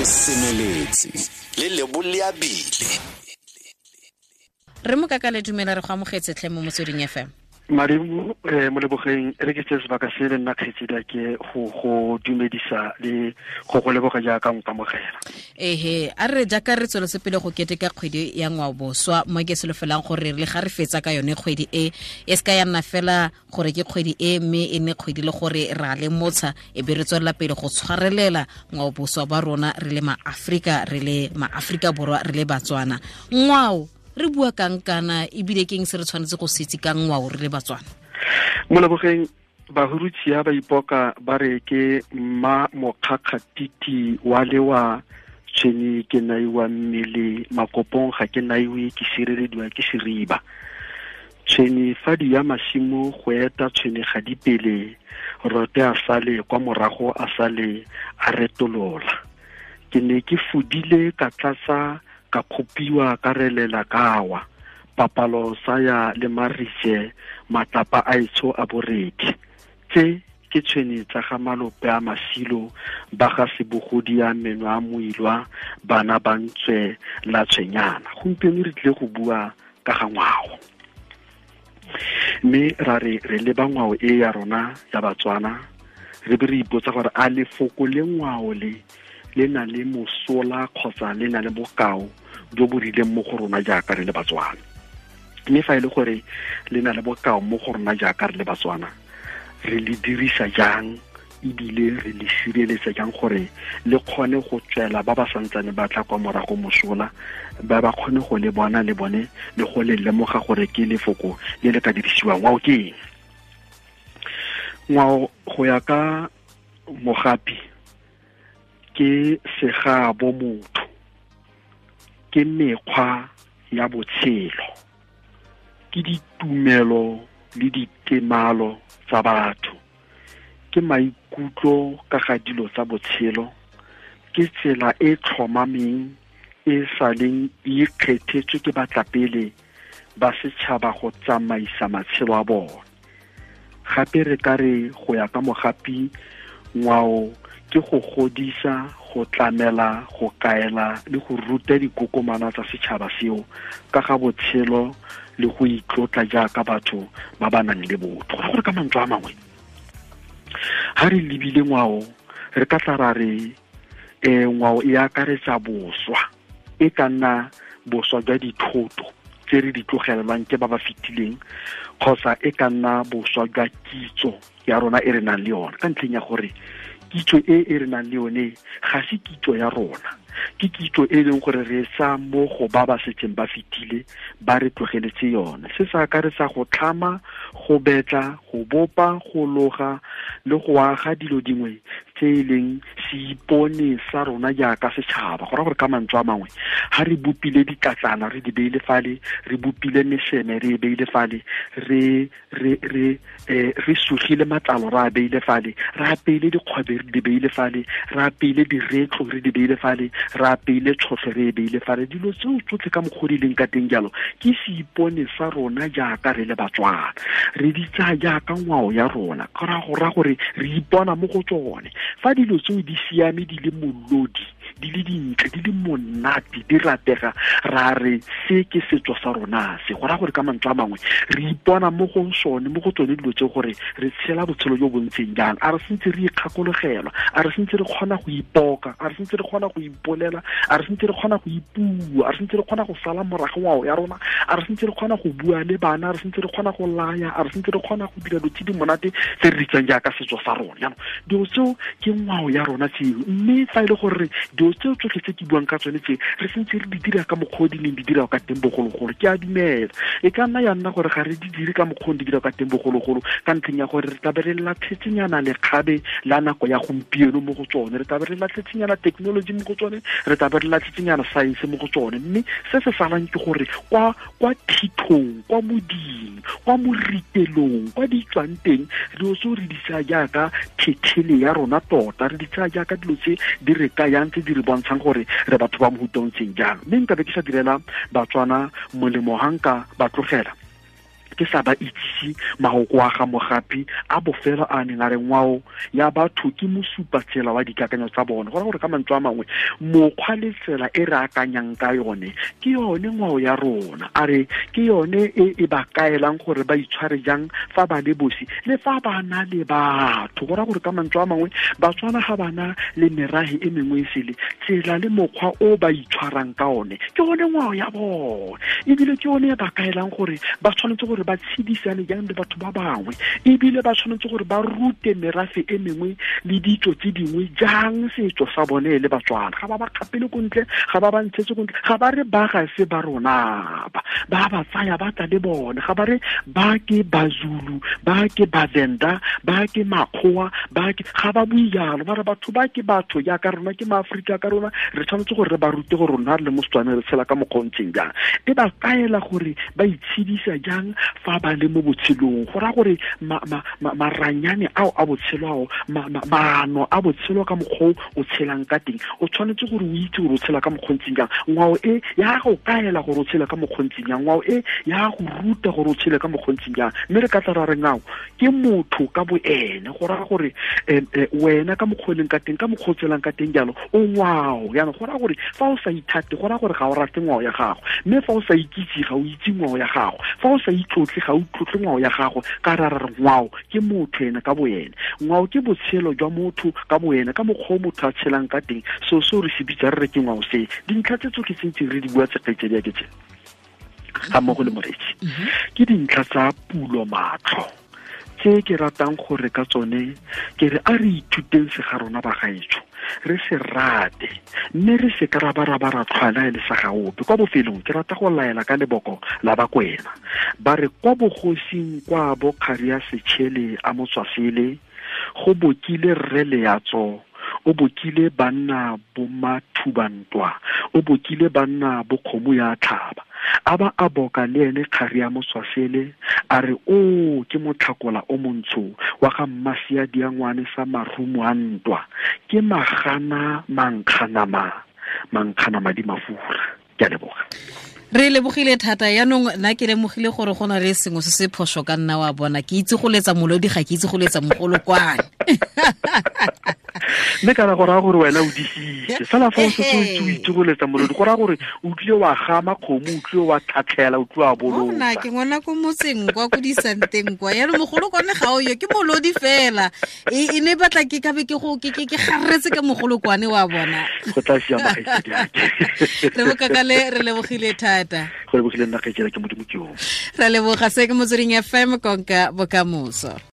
Re semeletse le Lebo Leabile. Re Mokakale, dumela, re go amogetse tlhe mo Motsweding FM. Madimo Molebogeng, re ke tse sebaka se le nna kgetsedi ke go dumedisa le go leboga jaaka nkamogela. Ehe, a re jaaka re tsweletse pele go keteka kgwedi ya ngwaoboswa, mo ke solofelang gore le ga re fetsa ka yone kgwedi e e se ka ya nna fela gore ke kgwedi e, mme e nne kgwedi le gore ra le motsha e be re tswelela pele go tshwarelela ngwaoboswa ba rona re le maAfrika, re le maAfrika Borwa, re le Batswana. Ngwao re bua kang kana, ebile ke eng se re tshwanetse go se itse ka ngwao re le Batswana? Molebogeng, Bahurutshia ba ipoka ba re ke mma mokgakgatiti wa lewa tshwene ke naiwa mmele makopong ga ke naiwe ke sirelediwa ke seriba. Tshwene fa di ya masimo go eta tshwene ga di pele, rote a sale kwa morago a sale a retolola. Ke ne ke fudile ka tlatsa ka kgopiwa ka relela kawa, papalo sa ya le marise matlapa a etsho a boredi. Tse ke tshwene tsa ga malope a masilo ba ga sebogodi ya meno a moilwa bana ba ntswe la tshwenyana. Gompieno re tlile go bua ka ga ngwao, mme ra re re leba ngwao e ya rona ya Batswana, re be re ipotsa gore a lefoko le ngwao le le na le mosola kgotsa le na le bokao jo bo rileng mo go rona jaaka re le Batswana. Mme fa e le gore le na le bokao mo go rona jaaka re le Batswana, re le dirisa jang ebile re le sireletsa jang gore le kgone go tswela ba ba santsane ba tla kwa morago mosola, ba ba kgone go le bona le bone le go le lemoga gore ke lefoko le le ka dirisiwang. Ngwao ke eng? Ngwao go ya ka Mogapi ke segabo motho, ke mekgwa ya botshelo, ke ditumelo le ditemalo tsa batho, ke maikutlo ka ga dilo tsa botshelo, ke tsela e tlhomameng e sa leng e ikgethetswe ke batlapele ba setšhaba go tsamaisa matshelo a bone. Gape re ka re go ya ka Mogapi, ngwao ke go godisa, go tlamela, go kaela le go ruta dikokomana tsa setšhaba seo ka ga botshelo le go itlotla jaaka batho ba ba nang le botho. Go gore ka mantswe a mangwe, ha re lebile ngwao re ka tla ra re ngwao e akaretsa boswa, e ka nna boswa jwa dithoto tse re di tlogelelwang ke ba ba fetileng, kgotsa e ka nna boswa jwa kitso ya rona e re nang le yone, ka ntlheng ya gore kitso e e re nang le yone ga se kitso ya rona, ke kitso e leng gore re sa mo go ba ba setseng ba fetile ba re tlogeletse yone. Se se akaretsa go tlhama, go betla, go bopa, go loga le go aga dilo dingwe tse e leng seipone sa rona jaaka setšhaba. Go raya gore ka mantswe a mangwe, ha re bopile ditlatlana re di beile fale, re bopile meseme re e beile fale, re sugile matlalo re a beile fale, re apeile dikgwebe re di beile fale, re apeile diretlo re di beile fale, re apeile tšhotlho re e beile fale. Dilo tseo tsotlhe ka mokgwa di leng ka teng jalo ke seipone sa rona jaaka re le Batswana, re di tsaya jaaka ngwao ya rona. Go raya gore re ipona mo go tsone. Fa dilo tseo di siame, di le molodi, di le dintle, di le monate, di ratega, ra re se ke setso sa rona se. Go raya gore ka mantswe a mangwe re ipona mo go sone, mo go tsone dilo tse, gore re tshela botshelo jo bo ntseng jang. A re sentse re ikgakologelwa, a re sentse re kgona go ipoka, a re sentse re kgona go ipolela, a re sentse re kgona go ipua, a re sentse re kgona go sala morago ngwao ya rona, a re sentse re kgona go bua le bana, a re sentse re kgona go laya, a re sentse re kgona go dira dilo tse di monate tse re di tsang jaaka setso sa rona. Jaanong dilo tseo ke ngwao ya rona tseo. Mme fa e le gore dilo tseo tsotlhe tse ke buang ka tsone tse re sentse re di dira ka mokgwa o di neng di dira ka teng bogologolo, ke a dumela e ka nna ya nna gore ga re di dire ka mokgwa o di dira ka teng bogologolo, ka ntlheng ya gore re tla be re latlhetsenyana lekgabe la nako ya gompieno mo go tsone, re tla be re latlhetsenyana technology mo go tsone, re tla be re latlhetsenyana science mo go tsone. Mme se se salang ke gore kwa thithong, kwa moding, kwa moritelong, kwa di tswang teng, dilo tseo re di tsaya jaaka phethele ya rona tota, re di tsaya jaaka dilo tse di re kayang, tse di re bontshang gore re batho ba mohuta o ntseng jalo. Mme nka be ke sa direla Batswana molemo ha nka ba tlogela Ke sa ba itsise mahoko a ga Mogapi a bofelo a neng a re ngwao ya batho ke mosupatsela wa dikakanyo tsa bone. Go raya gore ka mantswe a mangwe mokgwa le tsela e re akanyang ka yone ke yone ngwao ya rona. A re ke yone e e ba kaelang gore ba itshware jang fa ba le bosi le fa ba na le batho. Go raya gore ka mantswe a mangwe Batswana ga bana le merahe e mengwe e sele, tsela le mokgwa o ba itshwarang ka one ke one ngwao ya bone, ebile ke yone e ba kaelang gore ba tshwanetse gore ba tshedisane jang le batho ba bangwe, ebile ba tshwanetse gore ba rute merafe e mengwe le ditso tse dingwe jang setso sa bone le Batswana. Ga ba ba kgapele ko ntle, ga ba ba ntshetse ko ntle, ga ba re ba ga se ba rona ba ba tsaya ba tla le bone, ga ba re ba ke Bazulu, ba ke Bavenda, ba ke Makgowa, ba ke, ga ba bue jalo. Ba re batho ba ke batho jaaka rona, ke maAforika ka rona, re tshwanetse gore re ba rute gore rona re le mo Setswaneng re tshela ka mokgwa o ntseng jang. E ba kaela gore ba itshedisa jang fa ba le mo botshelong. Go raya gore maranyane ao a botshelo ao, maano a botshelo ka mokgwa o tshelang ka teng, o tshwanetse gore o itse gore o tshela ka mokgwa o ntseng jang. Ngwao e ya go kaela gore o tshela ka mokgwa o ntseng jang, ngwao e ya go ruta gore o tshele ka mokgwa o ntseng jang. Mme re ka tla ra re ngwao ke motho ka bo ene. Go raya gore wena ka mokgwa o leng ka teng, ka mokgwa o tshelang ka teng jalo, o ngwao. Jaanong go raya gore fa o sa ithate, go raya gore ga o rate ngwao ya gago, mme fa o sa ikitse ga o itse ngwao ya gago, fa o sa itlotle ga o tlotle ngwao ya gago. Ka ra re ngwao ke motho ene ka boene, ngwao ke botshelo jwa motho ka boene, ka mokgwa o motho a tshelang ka teng. So seo re se bitsa re re ke ngwao se. Dintlha tse tsotlhe tse ntseng re di bua tse kgaitsedi ya ke tse ga mmogo le moreetsi, ke dintlha tsa pulo matlho tse ke ratang gore ka tsone ke re a re ithuteng se ga rona ba gaetsho, re se rate, mme re se ka ra ba ra ba ra tlhwaela e le sa gaope. Kwa bofelong ke rata go laela ka leboko la Bakwena. Ba re kwa bogosing kwa bo kgari ya Setšhele a Motswasele, go bokile rre Leatso, o bokile banna bo mathubantwa, o bokile banna bo kgomo ya tlhaba. A ba a boka le ene kgari ya Motswasele, a re o ke motlhakola o montsho wa ga Mmasia Diangwane sa marumo a ntwa, ke magana mankganama, mankgana madi mafura. Ke a leboga. Re lebogile thata. Yaanong nna ke lemogile gore go na le sengwe se se phoso ka nna wa bona. Ke itse go letsa molodi, ga ke itse go letsa mogolokwane. Mme kana go raya gore wena o disitse fela fa o setse o itse o itse go letsa molodi, go raya gore o tlile wa gama kgomo, o tlile wa tlhatlhela, o tlile wa bolotsa. Nna ke ngwana ko motseng kwa ko disanteng kwa, yaanong mogolokwane ga o yo, ke molodi fela. E ne batla ke kabe ke go ke garetse ka mogolokwane wa bona. Go tla siama kgaitsedi ake. Re bokakale, re lebogile thata. Go lebogile nna kgaitsedi ke Modimo ke yo. Re leboga. Se ke Motsweding FM, konka bokamoso.